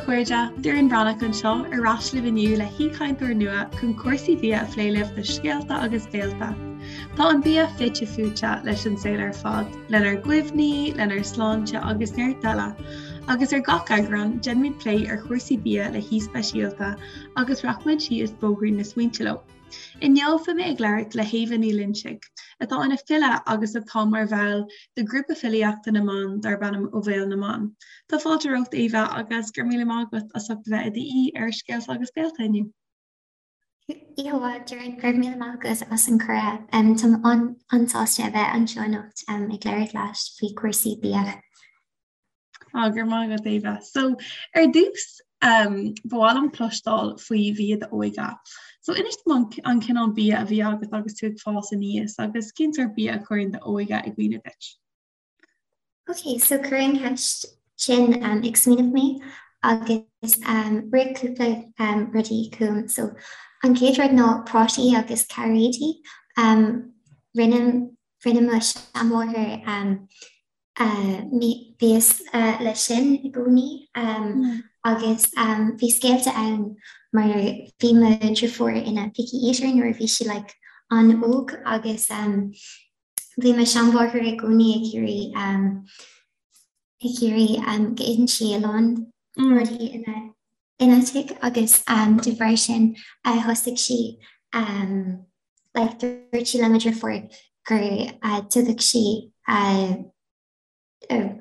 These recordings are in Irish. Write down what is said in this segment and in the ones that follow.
chairde, Doireann Breathnach anseo ar ais libh inniu le haoichainteoir nua chun cúrsaí bia a phlé libh do Scéalta agus Béalta. Tá an bia fite fuaite leis an saol ar fad, lenár gcuimhní, lenár sláinte agus neart eile. Agus ar gach eagrán, déanaimid plé ar chúrsaí bia le haoi speisialta agus rachaimid síos bóithrín na smaointe leo. Inniu beidh mé ag labhairt le hÉabha Ní Loinsigh, atá ina file agus atá mar bhall de ghrúpa filíochta na mban darb ainm Ó Bhéal na mBan. Tá fáilte romhat Éabha agus go raibh míle maith agat as ucht a bheith i d'aoi ar Scéalta agus Béalta inniu. Oíche mhaith, Doireann, go raibh míle maith agat as an cuireadh. Táim an-sásta a bheith anseo anocht ag labhairt leat faoi chúrsaí bia. Á, go raibh maith agat, Éabha. So, ar dtús, um, ba mhaith liom cloisteáil faoi bhia d'óige. So, inis dom an, an cineál bia a bhí agat agus tú ag fás aníos agus cén sórt bia a chuireann d'óige i gcuimhne duit? Ok, so cuireann an cheist sin um, ag smaoineamh mé agus um, rith cúpla um, rudaí chugam. So, an chéad rud ná prátaí agus cairéidí. Um, rinne, rinne mo seanmháthair um, Mias leis sin i gcónaí agus bhí scéalta ann mar bhí mo dheirfiúr ina picky eater nuair a bhí sí like an-óg agus bhí mo seanmháthair i gcónaí ag iarraidh ag iarraidh go itheann sí a lán rudaí ina ina tigh agus de bharr sin thosaigh sí like dúirt sí le mo dheirfiúr go dtugadh sí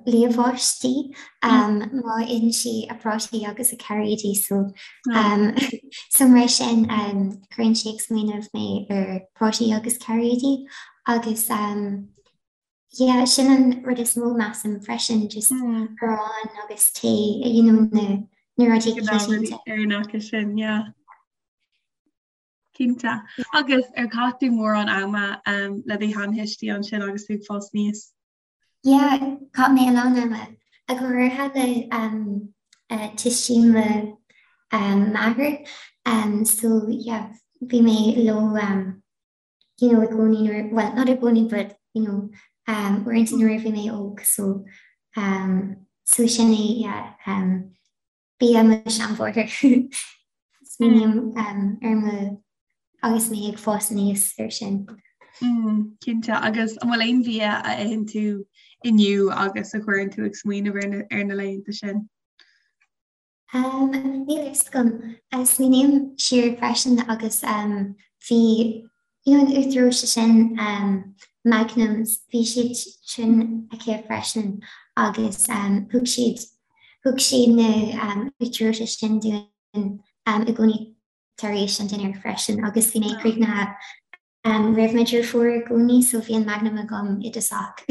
liamhás di má itheann sí a prátaí agus a cairéidí so so mar sin cuireann sé ag smaoineamh mé ar prátaí agus cairéidí agus yeah sin an rud is mó measaim freisin just arán agus tae you know na na rudaí coitianta. Ar an acu sin yeah. Cinnte. Agus ar chaith tú mórán ama le do sheantuistí ansin agus tú ag fás aníos? Yeah, chaith mé a lán ama, go háirithe le tuistí mo mháthair. So yeah, bhí mé leo you know i gcónaí nuair, well not i gcónaí but you know uaireanta nuair a bhí mé óg so so sin é yeah. Bia mo sheanmháthair. Smaoiním ar mo agus mé ag fás aníos ar sin. Cinnte, agus an bhfuil aon bhia a itheann tú inniu agus a chuireann tú ag smaoineamh ar na laethanta sin? Níl a fhios agam. Smaoiním siar freisin agus bhí you know an uachtar reoite sin Magnums, bhí siad sin aici freisin agus thug siad Thug sí na uachtar reoite sin dúinn i gcónaí tar éis an dinnéir freisin agus bhí mé críochnaithe roimh mo dheirfiúr i gcónaí so bhí an Magnum agam i dtosach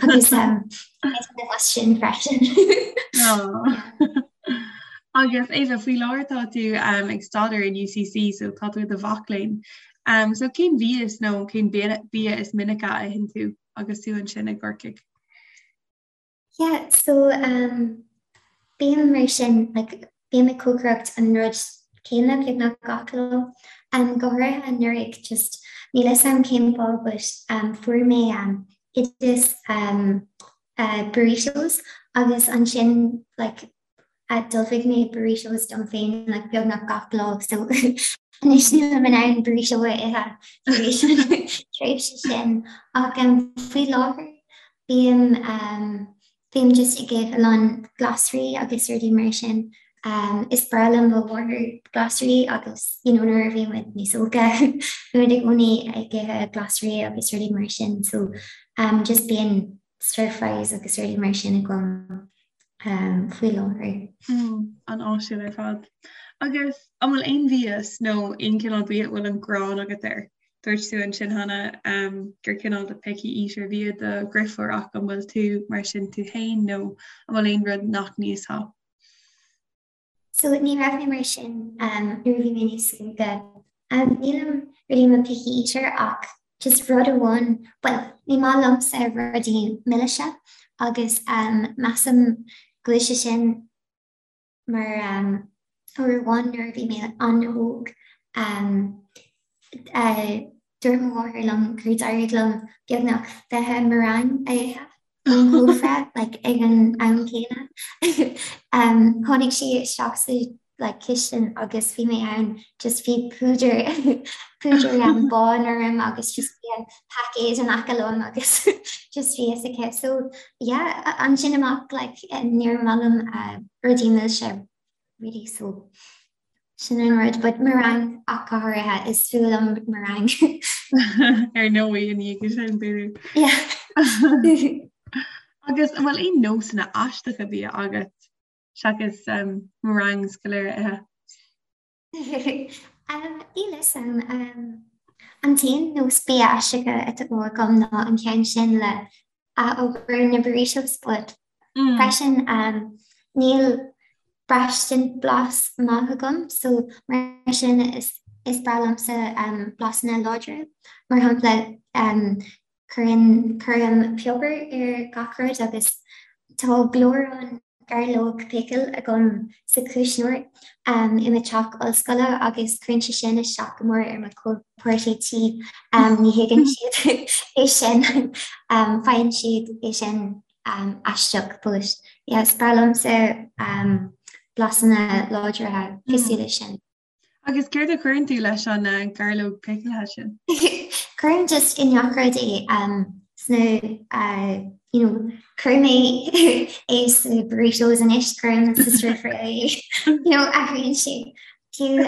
agus as sin freisin. Agus Éabha, faoi láthair tá tú ag staidéar in UCC so tá tú i do mhac léinn. So cén mhias nó cén bia is minice a itheann tú agus tú ansin i gCorcaigh? Yeah, so um, bím mar sin, like, bím ag cócaireacht an rud céanna beagnach gach lá. Um, go háirithe anuraidh, just níl a fhios agam cén fáth, but um, fuair mé um, oideas um, uh, burritos agus ansin like, D'ullmhaigh mé burritos dom féin like beagnach gach lá so anois nílim in ann burrito a ithe tar éis an tréimhse sin. Ach um, faoi láthair bím um, bím just ag ithe a lán glasraí agus rudaí mar sin. Um, is breá le mo mháthair glasraí agus you know, nuair a bhí muid níos óige bhí muid i gcónaí ag ithe glasraí agus rudaí mar sin so um, just bíonn stir fries agus rudaí mar sin agam faoi láthair. An-áisiúil ar fad. Agus an bhfuil aon mhias nó aon chineál bia a bhfuil an ghráin agat air? Dúirt tú ansin cheana gur cineál de picky eater a bhí i do dheirfiúr ach an bhfuil tú mar sin tú féin nó an bhfuil aon rud nach n-íosfá? So ní raibh mé mar sin nuair a bhí mé níos óige. Nílim really i mo picky eater ach just rud amháin, bhuel, ní maith liomsa rudaí milise agus measaim go bhfuil sé sin mar uair amháin nuair a bhí mé an-óg, dúirt mo mháthair liom gur d'éirigh liom beagnach 20 meringue a ithe. Ón chófra like ag an am céanna. Um, tháinig sí isteach sa like cistin agus bhí mé ann just bhí púdar púdar um, bán orm agus just bhí an paicéad in aice liom agus just bhí fhios aici. So yeah, ansin amach like níor mhaith liom uh, rudaí milse really so Sin an rud, but meringue ach go háirithe, is fuath liom meringue. Ar ndóigh, i ndiaidh sin, b'fhéidir. Yeah. Agus an bhfuil aon nósanna aisteacha bia agat seachas um, meringues go léir a ithe? um, Níl fhios a'm. Um, an t-aon nós bia aisteacha atá agam ná an ceann sin le ath-obair na burritos but freisin níl braistint blas maith agam so mar sin is is breá liomsa blasanna láidre. Mar shampla cuireann cuirim piobar ar gach rud agus tá gleorán gairleog pickle agam sa chuisneoir i mo teach ollscoile agus cuireann sé sin isteach go mór ar mo chomhpháirtí tí. Ní thuigeann siad é sin, faigheann siad é sin aisteach but yeah is breá liomsa blasanna láidre cosúil leis sin. Agus céard a chuireann tú leis an gairleog picilithe sin? Cuirim just i ngach rud é sna you know cuirim é é sna burritos anois, cuirim sa stir fry é you know athraíonn sé fiú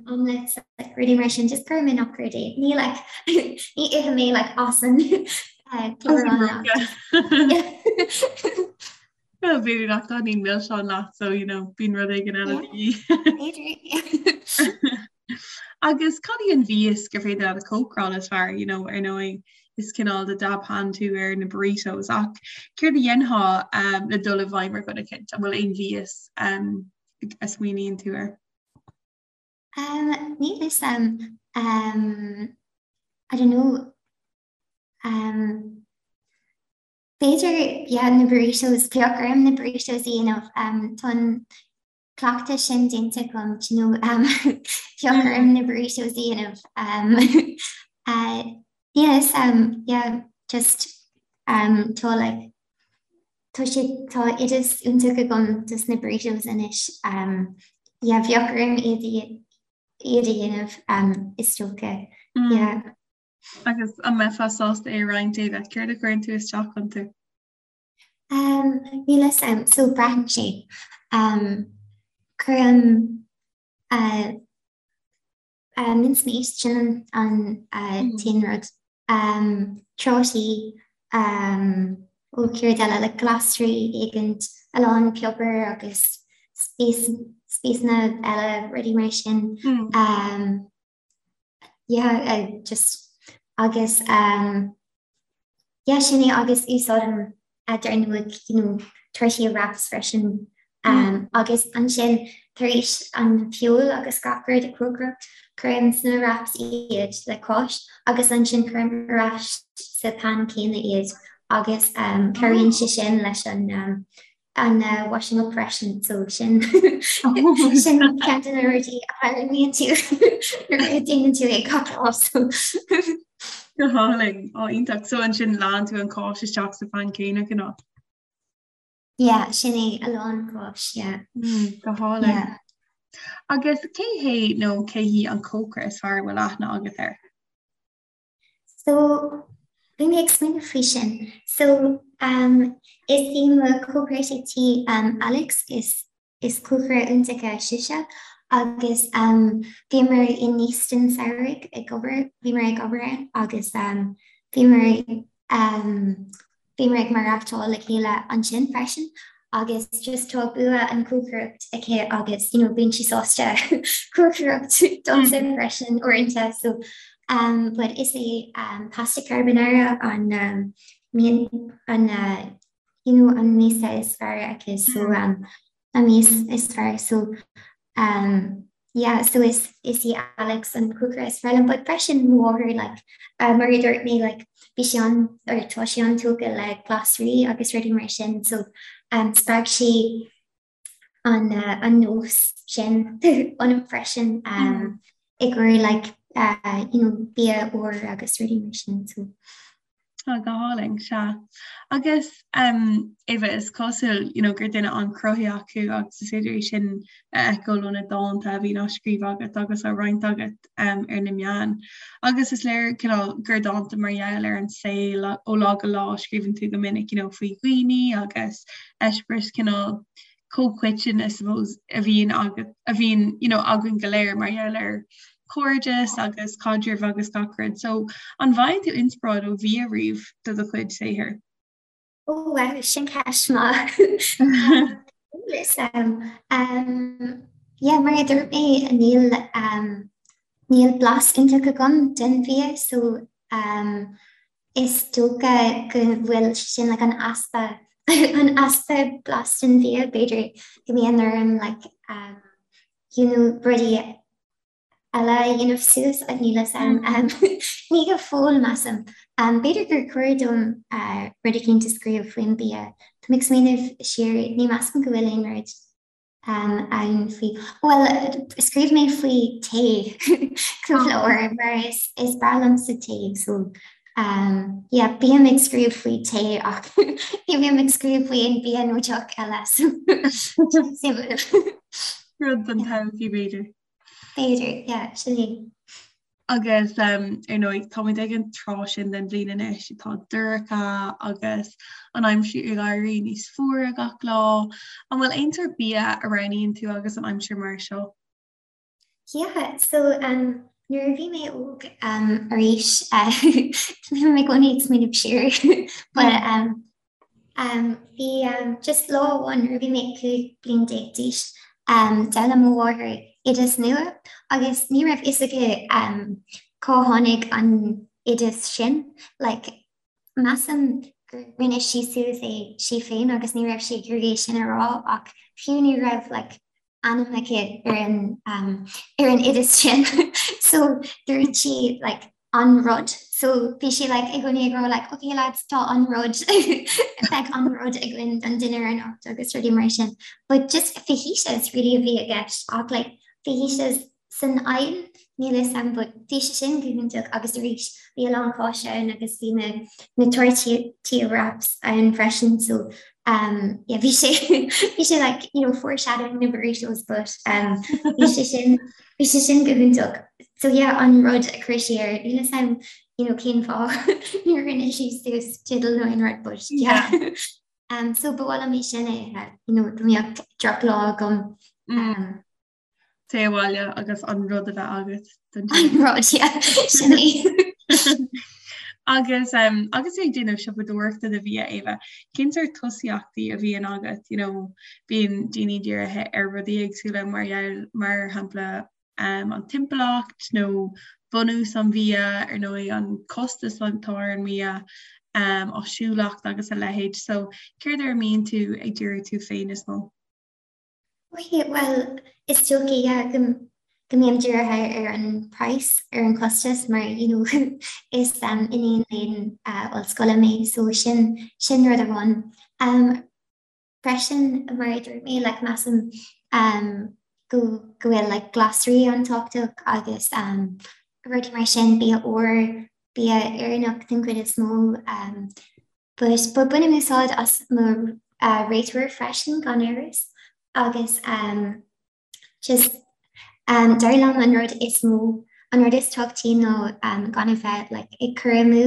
omelets like rudaí mar sin just cuirim i ngach rud é. Ní like ní ithim é like as an gleorán. Well, b'fhéidir nach dtaitníonn milseáin leat so you know, bíonn rud éigin eile de dhíth. Agus cad í an mhias gur féidir leat a chócaráil is fearr, you know, ar ndóigh is cineál de dab hand tú ar na burritos ach céard a dhéanfá um, le dul i bhfeidhm ar dhuine éicint? An bhfuil aon mhias um, a smaoiníonn tú air? Um, níl fhios a'm um, I don't know um, B'fhéidir, yeah, na burritos, bheadh orm na burritos a dhéanamh, tá an cleachtadh sin déanta agam, do you know, bheadh orm na burritos a dhéanamh. Yes, yeah, just tá like, tá sé, tá oideas iontach agam dos na burritos anois, yeah, bheadh orm iad iad a dhéanamh is dócha, yeah. Agus an mbeifeá sásta é a roinnt, Ava? Céard a chuireann tú isteach iontu? Um, níl fhios a'm, so braitheann sé. Um, cuirim uh, uh, mince meat, sin an, an uh, mm. t-aon rud. Um, trátaí, um, ó céard eile, like glasraí éigint, a lán piobar agus spíosna eile, rudaí mar sin. Mm. Um, yeah just agus um yeah sin é agus úsáidim dar ndóigh you know tortilla wraps freisin um agus ansin tar éis an feoil agus gach rud a chócaireacht cuirim sna wraps iad le cáis agus ansin cuirim ar ais sa pan céanna iad agus um cabhraíonn sé sin leis an um an washing up freisin so sin sin ceann de na rudaí a tharlaíonn tú nuair a déanann tú é gach lá so. Go hálainn, á iontach. So ansin leánn tú an cáis isteach sa phan céanna cineál? Yeah, sin é a lán cáis, yeah. Mm, go hálainn. Yeah. Agus cé hé nó cé hí an cócaire is fearr a bhfuil aithne agat air? So, bhí mé ag smaoineamh faoi sin. So, um, is í mo chomhpháirtí tí um, Alex, is, is cócaire iontach sise, agus um, bhíomar in Easton samhradh ag obair, bhíomar ag obair ann agus um, bhíomar um, Bhíomar ag maireachtáil le chéile ansin freisin agus just tá bua an chócaireacht aici agus you know bíonn sí sásta cócaireacht domsa freisin uaireanta so um but is é um pasta carbonara an um mian an uh, you know an mias is fearr aici so um an mias is fearr so um yeah so is is í Alex an cócaire is fearr liom but freisin mo mháthair like uh, mar a dúirt mé like bhí sí an or tá sí an-tógtha le glasraí agus rudaí mar sin so um spreag sí an uh, an nós sin ionam freisin um mm. i gcomhair like uh, you know bia úr agus rudaí mar sin so. Tá go hálainn, sea. Agus um, Eva, is cosúil you know, gur duine an-chruthaitheach thú agus is féidir é sin a fheiceáil ó na dánta a bhíonn á scríobh agat agus á roinnt agat um, ar na meáin. Agus is léir cineál gur dánta mar gheall ar an saol ó lá go lá a scríobhann tú go minic you know, faoi dhaoine agus eispéireas cineál comhchoiteann I suppose a bhíonn agat a bhíonn you know againn go léir mar gheall ar chairdeas agus caidrimh agus gach rud. So an bhfaigheann tú inspioráid ó bhia riamh do do chuid saothair? Oh wow, sin ceist maith. Um, yeah, mar a dúirt mé níl um, níl blas iontach agam den bhia, so um, Is dócha go bhfuil sin like an easpa an easpa blas den bhia, b'fhéidir go mbíonn orm like um, you know, rudaí eile a dhéanamh suas ach níl fhios a'm um, ní go fóill measaim. Um, b'fhéidir gur chóir dom uh, rud eicínt a scríobh faoin bia. Tá mé ag smaoineamh siar, ní measaim go bhfuil aon rud ann faoi, bhuel, scríobh mé faoi tae cúpla uair mar is is breá liomsa tae so um, yeah, bím ag scríobh faoi tae ach ní bhím ag scríobh faoi aon bia nó deoch eile so Rud don todhchaí b'fhéidir. B'fhéidir, yeah, sin é. Agus ar ndóigh, táimid ag an tráth sin den bhliain anois atá dorcha agus an aimsir ag éirí níos fuaire gach lá. An bhfuil aon sórt bia a roghnaíonn tú agus an aimsir mar seo? Yeah, so um, nuair a bhí mé óg um, arís, uh, bhí mé i gcónaí ag smaoineamh siar, but um, Bhí just lá amháin nuair a bhí mé 15 bliain d'aois, d'fhoghlaim mo mháthair oideas nua agus ní raibh fhios aici cá tháinig an oideas sin. Like, measaim gur rinne sí suas é sí féin agus ní raibh sí ag iarraidh é sin a rá ach fiú ní raibh like ainm aici ar an ar an oideas sin so dúirt sí like an rud so bhí sí like i gcónaí ag rá like okay lads tá an rud beidh an rud againn don dinnéar anocht agus rudaí mar sin but just fajitas really a bhí i gceist ach like fajitas san oigheann níl fhios a'm but bhí sé sin go hiontach agus arís bhí a lán cáise ann agus bhí na na tortilla wraps ann freisin so um yeah bhí sé bhí sé like you know foreshadowing na burritos but um bhí sé sin bhí sé sin go hiontach so yeah an rud a chuir sí air níl fhios a'm you know cén fáth níor rinne sí suas teideal nó aon rud but yeah um so ba mhaith liom é sin a ithe you know dá mbeadh drochlá agam um Téigh abhaile agus an rud a bheith agat don An rud, yeah, sin é. Agus um, agus tú ag déanamh siopadóireachta do bhia Éabha, cén sórt tosaíochtaí a bhíonn agat, you know, bíonn daoine dírithe ar rudaí éagsúla mar gheall, mar shampla um, an timpeallacht nó bunús an bhia, ar ndóigh an costas atá ar an mbia, um, áisiúlacht agus a leithéid. So céard ar a mbíonn tú ag díriú tú féin is mó? Ok, bhuel, is dócha, yeah, go go mbím dírithe ar an praghas, ar an chostas mar, you know, is um, iníon léinn uh, ollscoile mé, so sin, sin rud amháin. Um, freisin, mar a dúirt mé, like, measaim um, go, go bhfuil like, glasraí an-tábhachtach agus um, rudaí mar sin, bia úr, bia Éireannach den chuid is mó, um, But but bainim úsáid as mo réiteoir freisin gan amhras agus um, just um, dar liom an rud is mó an rud is tábhachtaí ná um, gan a bheith like, ag cur amú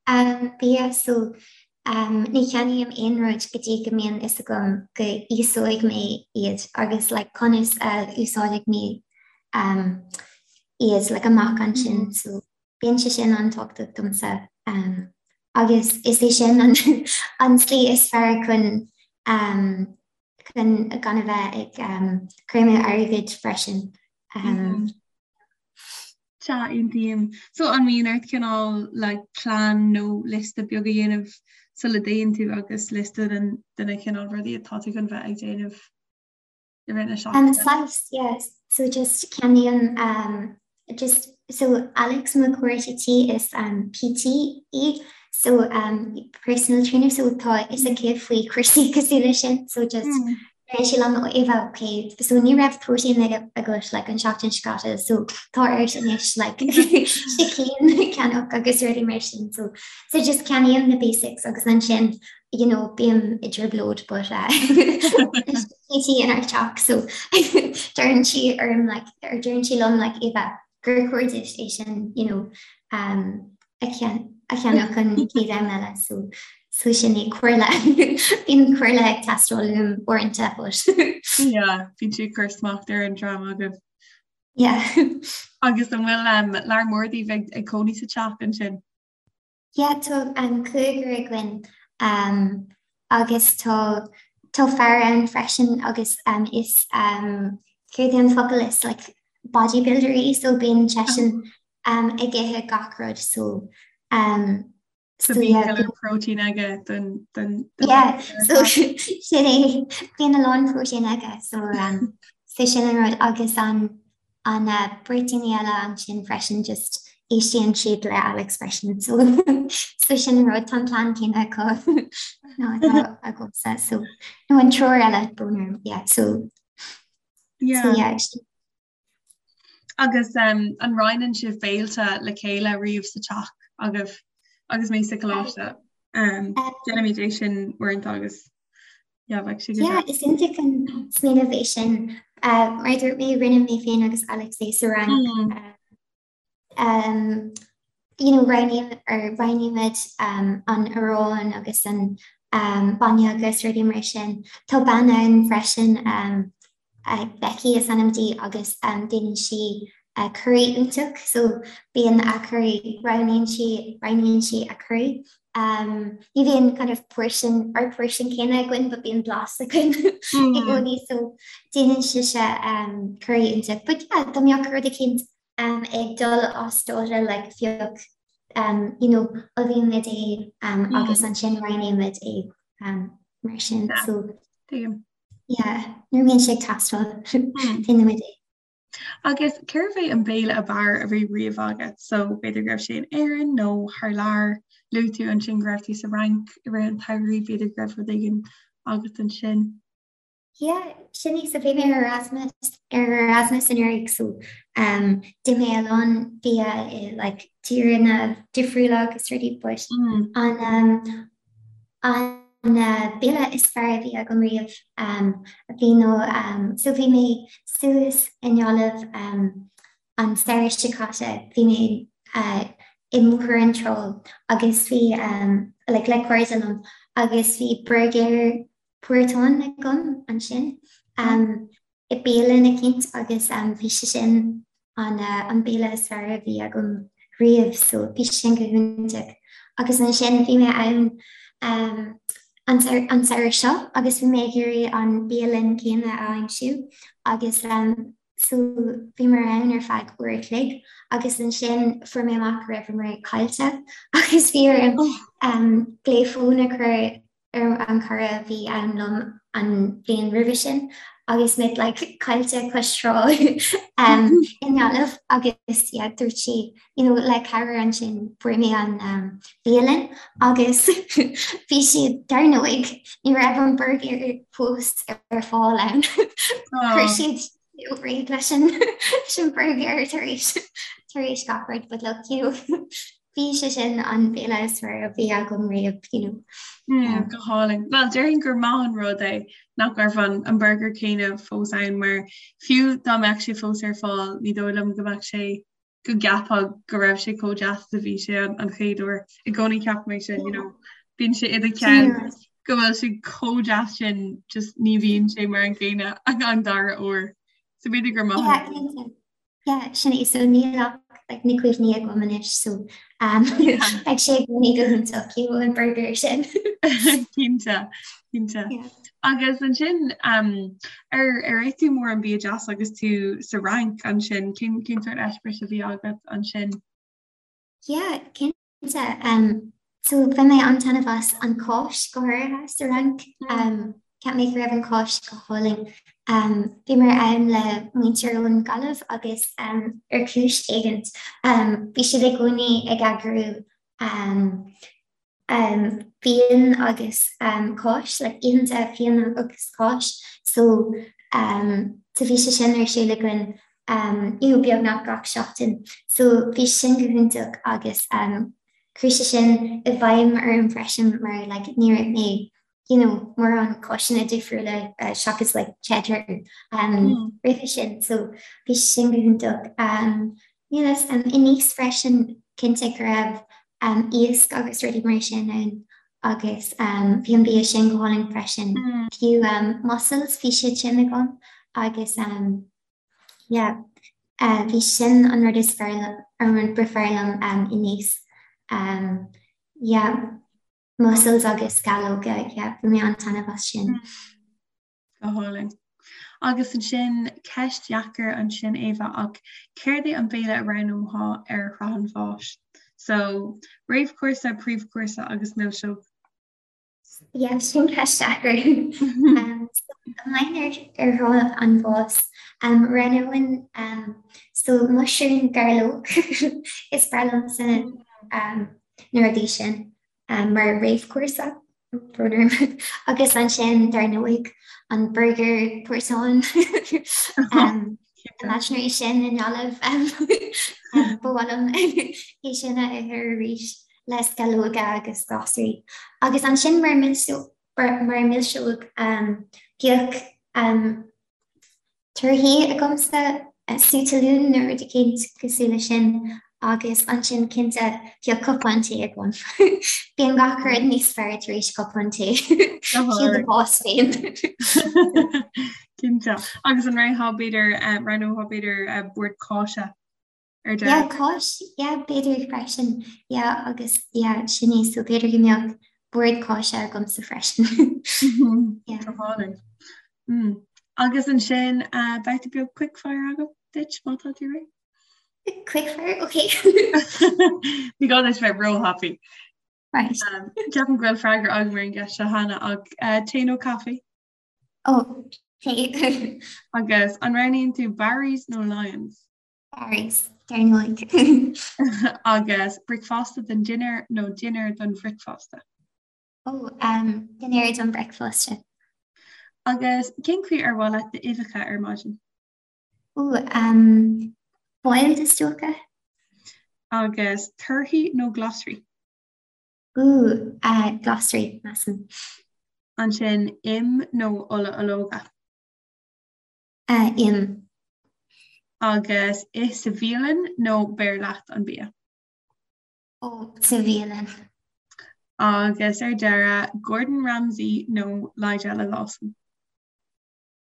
um, bia so um, ní cheannaím aon rud go dtí go mbíonn fhios agam go íosóidh mé iad agus like, conas a úsáidfidh mé um, iad like, amach ansin mm. so Bíonn sé sin an-tábhachtach domsa agus is é sin an an tslí is fearr chun chun gan a bheith ag cur amú airgid freisin. Sea, aontaím. So an mbíonn ort cineál like plean nó liosta beag a dhéanamh sula dtéann tú agus liosta den de na cineál rudaí atá tú chun bheith ag déanamh? i rith na seachtaine? Saghas, yeah. So just ceannaím um, just so Alex mo chara tí is um, PT í so um, personal trainer so tá fhios aici faoi chúrsaí cosúil leis sin so just mm. Deireann sí liom Eva ok so ní raibh protein agat like an seachtain seo caite so tá ort anois like sicín a cheannach agus rudaí mar sin so so just ceannaím na basics agus ansin you know bím i dtrioblóid but uh, Katie inár teach so deireann sí orm like or deireann sí liom like Eva gur chóir duit é sin you know um, a cheannach an chéad am eile so so sin é comhairle bíonn comhairle ag teastáil uaim uaireanta but Yeah, bíonn sí ag cur smacht ar an dream agaibh. Yeah. Agus an bhfuil um, lear mór daoibh ag, ag cónaí sa teach ansin? Yeah, tá um, cúigear againn um, agus tá tá fear ann freisin agus um, is um, céard é an focal is like bodybuilder é so bíonn seisean um, ag ithe gach rud so um, So bíonn yeah, go leor protein aige don don yeah, so sin é bíonn a lán protein aige so um, so sin an rud agus an an uh, beirt daoine eile ansin freisin just éistíonn siad le Alex freisin so so sin an rud tá an plean céanna acu ná atá agamsa so nó an triúr eile brón orm yeah so yeah. so yeah Agus um, an roinneann sibh béilte le chéile riamh sa teach agaibh agus mé sa choláiste? Um, Déanaimid é sin uaireanta agus yeah, bheadh sé go Yeah, is iontach an smaoineamh é sin. Uh, mar a dúirt mé rinne mé féin agus Alex é sa Fhrainc. Mm. Uh, um, you know, roghnaím or roghnaímid um, an arán agus an um, bainne agus rudaí mar sin. Tá bean ann freisin um, uh, Becky is ainm di agus um, déanann sí uh, curry iontach, so bíonn a curry roghnaíonn sí roghnaíonn sí a curry. Um, ní bhíonn kind of portion ar portion céanna againn, but bíonn blas againn i mm. gcónaí so déanann sise um, curry iontach. But yeah, dá mbeadh rud eicínt um, ag dul as dáta like phioc um, you know, ullmhaímid é um, mm. agus ansin roinnimid é um, mar sin. Yeah. So yeah, nuair a bhíonn sé ag teastáil hmm. déanaimid é. Agus cérbh é an béile ab fhearr a bhí riamh agat, so b'fhéidir go raibh sé in Éirinn nó thar lear, luaigh tú ansin go raibh tú sa Fhrainc i rith an tsamhraidh, b'fhéidir go raibh rud éigin agat ansin. Yeah, sin é, so bhí mé ar Erasmus ar Erasmus anuraidh so um, d'ith mé a lán bia i like, tíreanna difriúla agus rudaí but mm. an um, an uh, béile is fearr a bhí agam riamh um, a bhí nó um, so bhí mé suas i nGaillimh um, an samhradh seo caite bhí mé uh, i mBóthar na Trá agus bhí um, like, le cairde liom agus bhí burger portáin agam ansin i bialann eicínt agus bhí sé sin an béile is fearr a bhí agam riamh so bhí sé sin go hiontach. Agus ansin bhí mé ann an samhradh seo agus bhí mé ag iarraidh an bialann céanna a aimsiú agus so bhíomar ann ar feadh uair a chloig agus ansin fuair mé amach go raibheamar caillte agus bhí orm glao fóin a chur ar an cara a bhí ann liom an bhliain roimhe sin agus muid like caillte cois trá um, i nGaillimh agus yeah, dúirt sí you know, le cabhair ansin fuair mé an um, bialann agus bhí siad dar ndóigh ní raibh an burger fós ar fáil ann. Chuir oh. siad réidh leis an leis an burger tar éis tar éis gach rud but look you know bhí sé sin an béile is fearr a bhí agam riamh you know. Mm, go hálainn. Well déarfainn gur maith an rud é nach raibh an, an burger céanna fós ann mar fiú dá mbeadh sé fós ar fáil ní dóigh liom go mbeadh sé go gceapfá go raibh sé chomh deas is a bhí sé an, an chéad uair. I gcónaí ceapaim é sin, you know, bíonn sé i do cheann go bhfuil sé chomh deas sin just ní bhíonn sé mar an gcéanna an dara huair. So b'fhéidir gur maith Yeah, cinnte. Yeah, sin é so níl ach like, na cuimhní agam anois so um, beidh sé i gcónaí go hiontach you know, an burger sin. Cinnte, cinnte. Yeah. Agus ansin um, ar ar ith tú mórán bia deas agus tú sa Fhrainc ansin, cén cén sórt eispéireas a bhí agat ansin? Yeah, cinnte. Um, so bhain mé an-taitneamh as an cáis go háirithe sa Fhrainc. Um, cheap mé go raibh an cáis go hálainn. Um, bhíomar ann le muintir ón Gaillimh agus um, ar chúis éigint um, bhí siad i gcónaí ag eagrú um, um, fíon agus um, cáis, like oícheanta fíon agus cáis, so um, so bhí sé sin ar siúl againn um, you know, beagnach gach seachtain. So bhí sin go hiontach agus um, chuir sé sin i bhfeidhm orm freisin mar like, ní raibh mé you know, mórán cáiseanna difriúla uh, seachas like, cheddar um, mm. roimhe sin, so bhí sin go hiontach. Um, you know, um, i Nice freisin cinnte go raibh um, iasc agus rudaí mar sin ann agus um, bhí an bia sin go hálainn freisin. Mm. Fiú um, mussels bhí siad sin agam agus um, yeah, uh, bhí sin an rud is fearr an rud ba fearr liom um, i Nice. Um, yeah, mussels agus sceallóga, yeah, bhain mé an-taitneamh as sin. Mm. Go hálainn. Agus ansin, ceist dheacair ansin Éabha, ach céard é an béile a roghnófá ar shraith an bháis? So, réamhchúrsa, príomhchúrsa agus milseog. Yeah, sin ceist deacair. Um, so, mbeinn ar ar shraith an bháis, um, roghnóinn um, so muisiriún gairleog is breá liomsa um, na rudaí sin. mar réamhchúrsa, brón orm, agus ansin dar ndóigh an burger portáin imaginary sin i nGaillimh ba mhaith liom é sin a ithe arís le sceallóga agus glasraí. Agus ansin mar mar milseog bheadh Torthaí agamsa, sú talún nó rud eicínt cosúil leis sin agus ansin cinnte bheadh cupán tae agam. Bíonn gach rud níos fearr tar éis cupán tae. Fiú do bhás féin. Cinnte. Agus an roghnófá b'fhéidir, roghnófá b'fhéidir bord cáise? ar deireadh. Yeah, cáis, yeah, b'fhéidir freisin, yeah, agus yeah, sin é, so b'fhéidir go mbeadh bord cáise agamsa freisin. Yeah. Go hálainn. Mm. Agus ansin, uh, babhta beag quickfire agam duit má tá tú réidh? Quickfire, okay. Ní gá duit bheith róthapaidh. Right. Um, Ceapaim go bhfuil freagra agam ar an gceist seo cheana ach uh, tae nó caife? Oh, tae. Agus an roghnaíonn tú Barry's nó Lyons? Barry's, dar ndóigh. Agus bricfeasta don dinnéar nó dinnéar don bhricfeasta? Ó, um, dinnéar don bhricfeasta. Agus cén chaoi ar mhaith leat d'uibheacha ar maidin? Ó, um, boiled is dócha. Agus torthaí nó glasraí? Ó, uh, glasraí, measaim. Ansin im nó ola ológa? Im. Agus ith sa bhialann nó beir leat an bia? Ó, sa bhialann. Agus ar deireadh, Gordon Ramsay nó Nigella Lawson?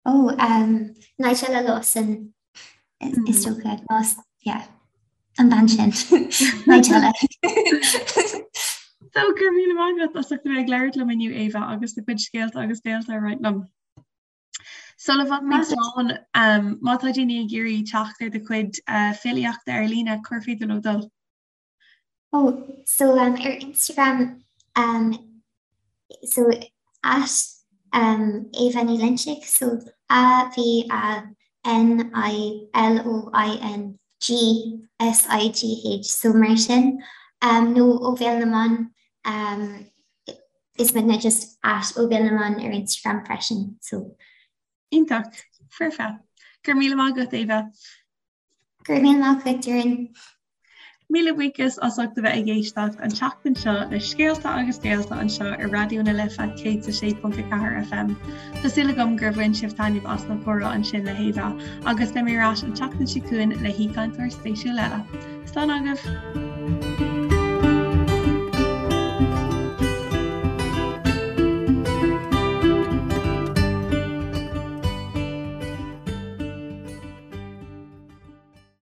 Ó, um, Nigella Lawson is dócha. Lawson, yeah. An bean sin. Nigella. So, go raibh míle maith agat as ucht a bheith ag labhairt liom inniu, Éabha, agus do chuid scéalta agus béalta a roinnt liom. Sula bhfágfaimid slán, má tá daoine ag iarraidh teacht ar do chuid filíochta ar líne, cár féidir leo dul? Oh, so um, ar Instagram, um, so at um, Ava Ní Loinsigh, so A V A N I L O I N G S I G H, so mar sin, um, nó Ó Bhéal na mBan, um, Is muidne just at Ó Bhéal na mBan ar Instagram freisin so. Iontach. Foirfe. Go raibh míle maith agat, Éabha. Go raibh míle maith agat, Doireann. Míle buíochas as ucht a bheith ag éisteacht an tseachtain seo le Scéalta agus Béalta anseo ar Raidió na Life 106.4 FM. Tá súil agam gur bhain sibh taitneamh as an chomhrá ansin le hÉabha agus beidh mé ar ais an tseachtain seo chugainn le haoichainteoir spéisiúil eile. Slán agaibh!